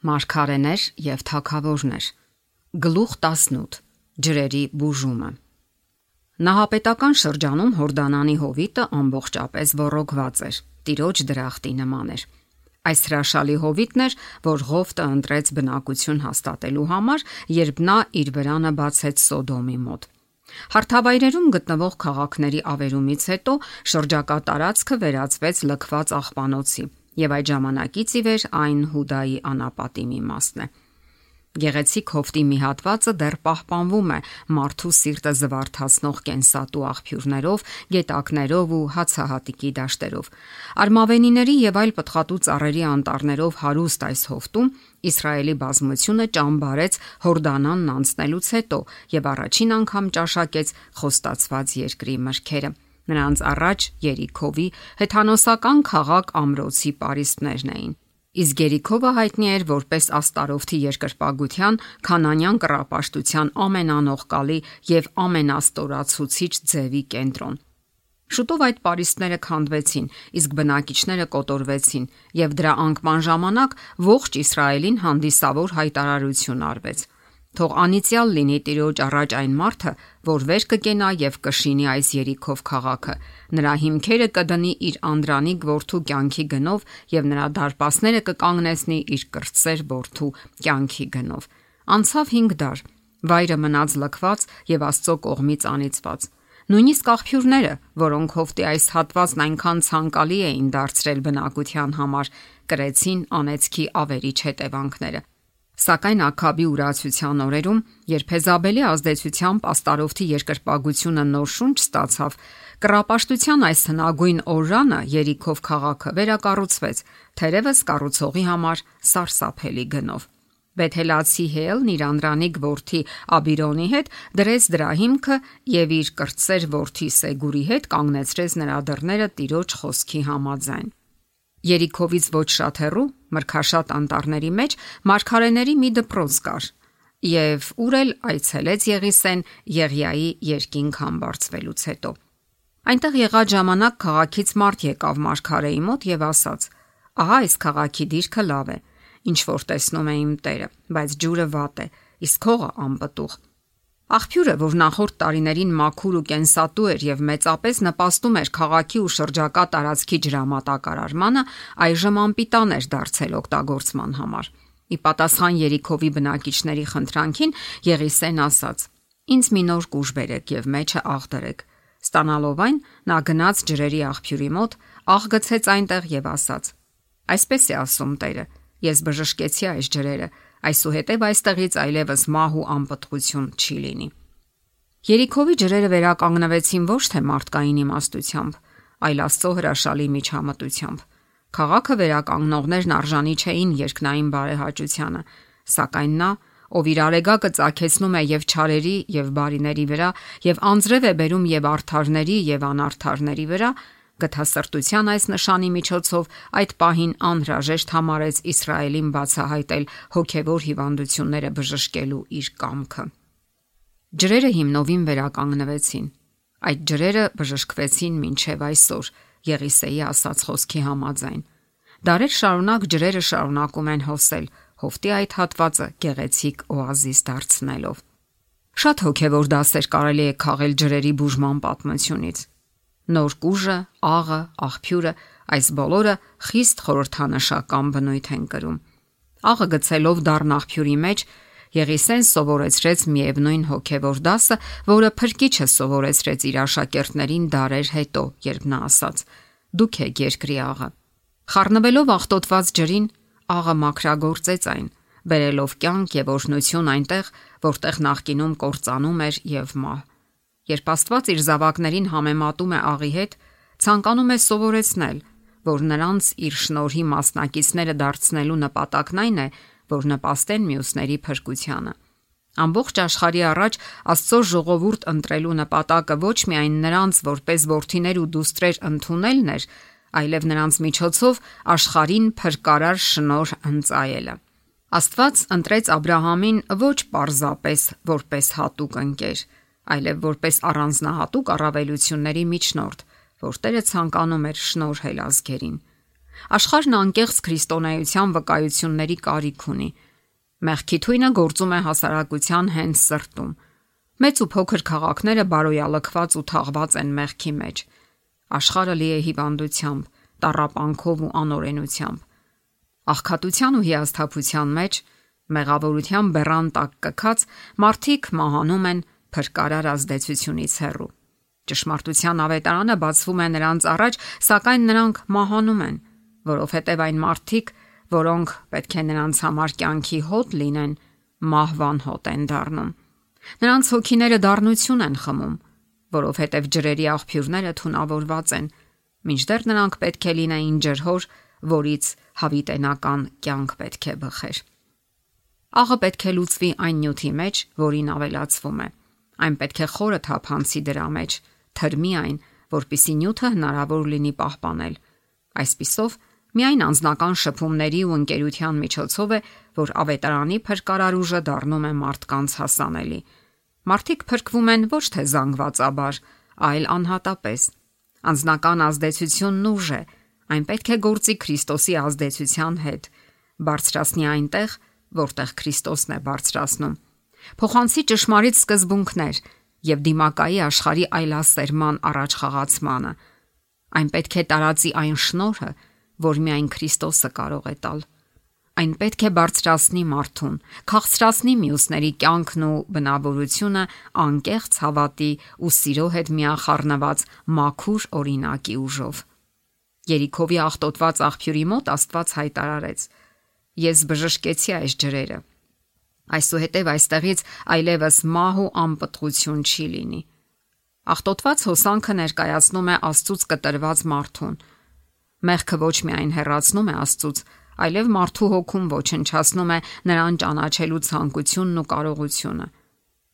Մարգարեներ եւ թագավորներ։ Գլուխ 18. Ջրերի բուժումը։ Նահապետական շրջանում Հորդանանի հովիտը ամբողջապես ոռոգված էր, տիրոջ դրախտի նման էր։ Այս հրաշալի հովիտն էր, որ Ղովտը ընտրեց բնակություն հաստատելու համար, երբ նա իր վրանը բացեց Սոդոմի մոտ։ Հարթավայրերում գտնվող քաղաքների ավերումից հետո շրջակա տարածքը վերածվեց լքված աղբանոցի, եւ այդ ժամանակից ի վեր այն Հուդայի անապատի մի մասն է։ Գեղեցիկ հովտի մի հատվածը դեռ պահպանվում է մարդու սիրտը զվարթացնող կենսատու աղբյուրներով, գետակներով ու հացահատիկի դաշտերով։ Արմավենիների եւ այլ պտղատու ծառերի անտառներով հարուստ այս հովտում Իսրայելի բազմությունը ճամբարեց Հորդանանն անցնելուց հետո եւ առաջին անգամ ճաշակեց խոստացված երկրի մրգերը։ Նրանց առաջ Երիքովի հեթանոսական քաղաք Ամրոցի պարիսպներն էին։ Իսկ Երիքովը հայտնի էր որպես Աստարովթի երկրպագության, քանանյան կռապաշտության ամենանողկալի եւ ամենաստորացուցիչ ձևի կենտրոն։ Շուտով այդ պարիսպները քանդվեցին, իսկ բնակիչները կոտորվեցին, եւ դրա անկման ժամանակ ողջ Իսրայելին հանդիսավոր հայտարարություն արվեց. Թող անիծյալ լինի Տիրոջ առաջ այն մարդը, որ վեր կկենա եւ կշինի այս Երիքով քաղաքը։ Նրա հիմքերը կդնի իր անդրանիկ որդու կյանքի գնով եւ նրա դարպասները կկանգնեցնի իր կրտսեր որդու կյանքի գնով։ Անցավ 5 դար, վայրը մնաց լքված եւ Աստծո կողմից անիծված։ Նույնիսկ աղբյուրները, որոնք հովտի այս հատվածն այնքան ցանկալի էին դարձրել բնակության համար, կրեցին անեծքի ավերիչ հետևանքները։ Սակայն Աքաբի ուրացության օրերում, երբ Հեզաբելի ազդեցությամբ Աստարովթի երկրպագությունը նոր շունչ ստացավ, կռապաշտության այս հնագույն օրրանը Երիքով քաղաքը վերակառուցվեց, թերևս կառուցողի համար սարսափելի գնով։ Բեթելացի Հելն իր անդրանիկ որդի Աբիրոնի հետ դրեց դրա հիմքը եւ իր կրտսեր որդի Սեգուրի հետ կանգնեցրեց նրա դռները Տիրոջ խոսքի համաձայն։ Երիքովից ոչ շատ հեռու, մրգաշատ անտառների մեջ մարգարեների մի դպրոց կար, եւ ուր էլ այցելեց Եղիսեն Եղիայի երկինք համբարձվելուց հետո։ Այնտեղ եղած ժամանակ քաղաքից մարդ եկավ մարգարեի մոտ եւ ասաց. «Ահա այս քաղաքի դիրքը լավ է, ինչ որ տեսնում է իմ Տերը, բայց ջուրը վատ է, իսկ հողը անպտուղ»։ Աղբյուրը, որ նախորդ տարիներին մաքուր ու կենսատու էր եւ մեծապես նպաստում էր քաղաքի ու շրջակա տարածքի ջրամատակարարմանը, այժմ անպիտան էր դարձել օգտագործման համար։ Ի պատասխան Երիքովի բնակիչների խնդրանքին Եղիսեն ասաց. «Ինձ մի նոր կուժ բերեք եւ մեջը աղ դրեք»։ Ստանալով այն, նա գնաց ջրերի աղբյուրի մոտ, աղ գցեց այնտեղ եւ ասաց. «Այսպես է ասում Տերը. ես բժշկեցի այս ջրերը, այսուհետև այստեղից այլևս մահ ու անպտղություն չի լինի»։ Երիքովի ջրերը վերականգնվեցին ոչ թե մարդկային իմաստությամբ, այլ Աստծո հրաշալի միջամտությամբ։ Քաղաքը վերականգնողներն արժանի չէին երկնային բարեհաճությանը, սակայն նա, ով իր արեգակը ծագեցնում է եւ չարերի եւ բարիների վրա, եւ անձրև է բերում եւ արդարների եւ անարդարների վրա, գթասրտության այս նշանի միջոցով այդ պահին անհրաժեշտ համարեց Իսրայելին բացահայտել հոգևոր հիվանդությունները բժշկելու իր կամքը։ Ջրերը հիմնովին վերականգնվեցին։ Այդ ջրերը բժշկվեցին մինչև այսօր, Եղիսեի ասած խոսքի համաձայն։ Դարեր շարունակ ջրերը շարունակում են հոսել, հովտի այդ հատվածը գեղեցիկ օազիս դարձնելով։ Շատ հոգևոր դասեր կարելի է քաղել ջրերի բուժման պատմությունից։ Նոր կուժը, աղը, աղբյուրը, այս բոլորը խիստ խորհրդանշական բնույթ են կրում։ Աղը գցելով դառն աղբյուրի մեջ Եղիսեն սովորեցրեց միևնույն հոգևոր դասը, որը Փրկիչը սովորեցրեց իր աշակերտներին դարեր հետո, երբ նա ասաց. «Դուք եք երկրի աղը»։ Խառնվելով աղտոտված ջրին, աղը մաքրագործեց այն, բերելով կյանք եւ օրհնություն այնտեղ, որտեղ նախկինում կործանում էր եւ մահ։ Երբ Աստված իր զավակներին համեմատում է աղի հետ, ցանկանում է սովորեցնել, որ նրանց իր շնորհի մասնակիցները դարձնելու նպատակն այն է, որ նպաստեն մյուսների փրկությանը։ Ամբողջ աշխարհի առաջ Աստծո ժողովուրդ ընտրելու նպատակը ոչ միայն նրանց որպես որդիներ ու դուստրեր ընդունելն էր, այլև նրանց միջոցով աշխարհին փրկարար շնորհ ընծայելը։ Աստված ընտրեց Աբ รา համին ոչ պարզապես որպես հատուկ ընկեր, այլև որպես առանձնահատուկ առավելությունների միջնորդ, որ Տերը ցանկանում էր շնորհել ազգերին։ Աշխարհն անկեղծ քրիստոնեության վկայությունների կարիք ունի։ Մեղքի թույնը գործում է հասարակության հենց սրտում։ Մեծ ու փոքր քաղաքները բարոյալքված ու թաղված են մեղքի մեջ։ Աշխարհը լի է հիվանդությամբ, տառապանքով ու անօրենությամբ։ Աղքատության ու հիասթափության մեջ, մեղավորության բեռան տակ կքած, մարդիկ մահանում են փրկարար ազդեցությունից հեռու։ Ճշմարտության ավետարանը բացվում է նրանց առաջ, սակայն նրանք մահանում են, որովհետև այն մարդիկ, որոնք պետք է նրանց համար կյանքի հոտ լինեն, մահվան հոտ են դառնում։ Նրանց հոգիները դառնություն են խմում, որովհետև ջրերի աղբյուրները թունավորված են, մինչդեռ նրանք պետք է լինեին ջրհոր, որից հավիտենական կյանք պետք է բխեր։ Աղը պետք է լուծվի այն նյութի մեջ, որին ավելացվում է։ Այն պետք է խորը թափանցի դրա մեջ, թրմի այն, որպիսի նյութը հնարավոր լինի պահպանել։ Այսպիսով, միայն անձնական շփումների ու ընկերության միջոցով է, որ ավետարանի փրկարար ուժը դառնում է մարդկանց հասանելի։ Մարդիկ փրկվում են ոչ թե զանգվածաբար, այլ անհատապես։ Անձնական ազդեցությունն ուժ է, այն պետք է գործի Քրիստոսի ազդեցության հետ, բարձրացնի այնտեղ, որտեղ Քրիստոսն է բարձրացնում։ Փոխանցի ճշմարիտ սկզբունքներ եւ դիմակայի աշխարհի այլասերման առաջխաղացմանը։ Այն պետք է տարածի այն շնորհը, որ միայն Քրիստոսը կարող է տալ։ Այն պետք է բարձրացնի մարդուն, քաղցրացնի մյուսների կյանքն ու բնավորությունը անկեղծ հավատի ու սիրո հետ միախառնված մաքուր օրինակի ուժով։ Երիքովի աղտոտված աղբյուրի մոտ Աստված հայտարարեց. Ես բժշկեցի այս ջրերը։ Այսուհետև այստեղից այլևս մահ ու անպտղություն չի լինի։ Աղտոտված հոսանքը ներկայացնում է Աստծուց կտրված մարդուն։ Մեղքը ոչ միայն հեռացնում է Աստծուց, այլև մարդու հոգում ոչնչացնում է նրան ճանաչելու ցանկությունն ու կարողությունը։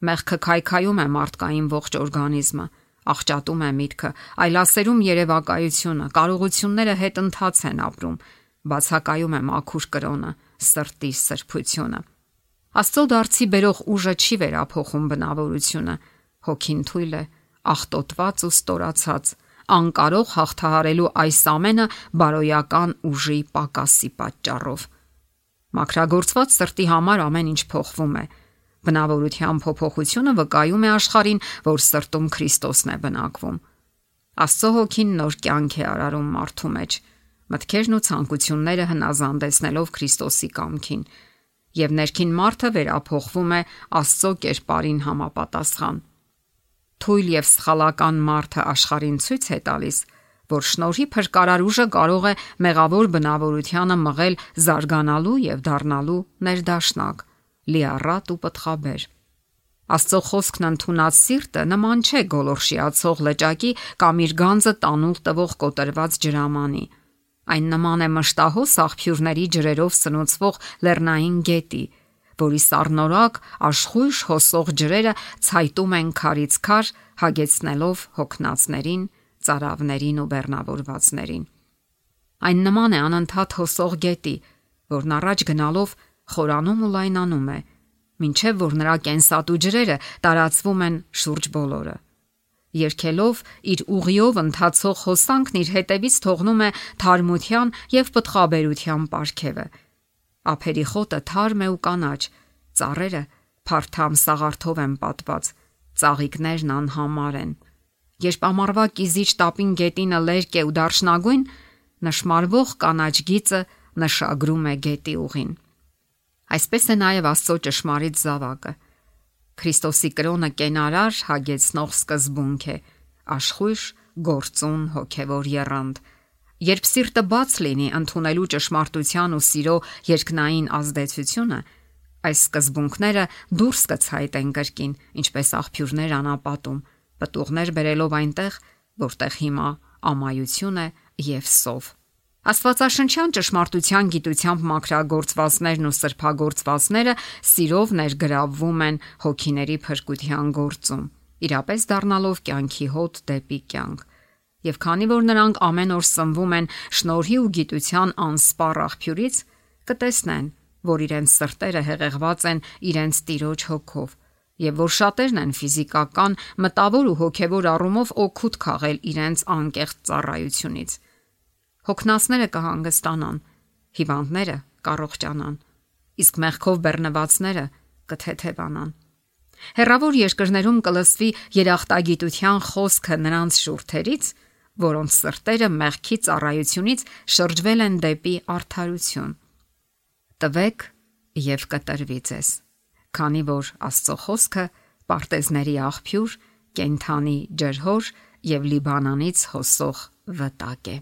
Մեղքը քայքայում է մարդկային ողջ օրգանիզմը, աղճատում է միտքը, այլասերում երևակայությունը, կարողությունները հետընթաց են ապրում, բացակայում է մաքուր կրոնը, սրտի սրբությունը։ Աստծո դարձի բերող ուժը չի վերափոխում բնավորությունը, հոգին թույլ է, աղտոտված ու ստորացած, անկարող հաղթահարելու այս ամենը բարոյական ուժի պակասի պատճառով։ Մաքրագործված սրտի համար ամեն ինչ փոխվում է։ Բնավորության փոփոխությունը վկայում է աշխարհին, որ սրտում Քրիստոսն է բնակվում։ Աստծո հոգին նոր կյանք է արարում մարդու մեջ, մտքերն ու ցանկությունները հնազանդեցնելով Քրիստոսի կամքին, եւ ներքին մարդը վերափոխվում է Աստծո կերպարին համապատասխան։ Թույլ եւ սխալական մարդը աշխարհին ցույց է տալիս, որ շնորհի փրկարար ուժը կարող է մեղավոր բնավորությանը մղել զարգանալու եւ դառնալու ներդաշնակ, լիառատ ու պտղաբեր։ Աստծո խոսքն ընդունած սիրտը նման չէ գոլորշիացող լճակի կամ իր գանձը տանուլ տվող կոտրված ջրամանի։ Այն նման է մշտահոս աղբյուրների ջրերով սնուցվող լեռնային գետի, որի սառնորակ աշխույժ հոսող ջրերը ցայտում են քարից քար, հագեցնելով հոգնածներին, ծարավներին ու բեռնավորվածներին։ Այն նման է անընդհատ հոսող գետի, որն առաջ գնալով խորանում ու լայնանում է, մինչև որ նրա կենսատու ջրերը տարածվում են շուրջ բոլորը։ Երգելով իր ուղիով ընթացող հոսանքն իր հետևից թողնում է թարմության եւ պտղաբերության պարգևը։ Ափերի խոտը թարմ է ու կանաչ, ծառերը փարթամ սաղարթով են պատված, ծաղիկներն անհամար են։ Երբ ամառվա կիզիչ տապին գետինը լերկ է ու դարչնագույն, նշմարվող կանաչ գիծը նշագրում է գետի ուղին։ Այսպես է նաև Աստծո ճշմարիտ զավակը։ Քրիստոսի կրոնը կենարար հագեցնող սկզբունք է, աշխույժ գործուն հոգևոր եռանդ։ Երբ սիրտը բաց լինի ընդունելու ճշմարտության ու սիրո երկնային ազդեցությունը, այս սկզբունքները դուրս կցայտեն կրկին, ինչպես աղբյուրներ անապատում, պտուղներ բերելով այնտեղ, որտեղ հիմա ամայություն է եւ սով։ Աստվածաշնչյան ճշմարտության գիտությամբ մաքրագործվածներն ու սրբագործվածները սիրով ներգրավվում են հոգիների փրկության գործում, իրապես դառնալով կյանքի հոտ դեպի կյանք։ Եվ քանի որ նրանք ամեն օր սնվում են շնորհի ու գիտության անսպառ աղբյուրից, կտեսնեն, որ իրենց սրտերը հեղեղված են իրենց Տիրոջ հոգով, եւ որ շատերն են ֆիզիկական, մտավոր ու հոգևոր առումով օգուտ քաղել իրենց անկեղծ ծառայությունից։ Հոգնածները կհանգստանան, հիվանդները կառողջանան, իսկ մեղքով բեռնվածները կթեթևանան։ Հեռավոր երկրներում կլսվի երախտագիտության խոսքը նրանց շուրթերից, որոնց սրտերը մեղքի ծառայությունից շրջվել են դեպի արդարություն։ Տվեք եւ կտրվի ձեզ, քանի որ Աստծո խոսքը պարտեզների աղբյուր, կենթանի ջրհոր եւ Լիբանանից հոսող վտակ է։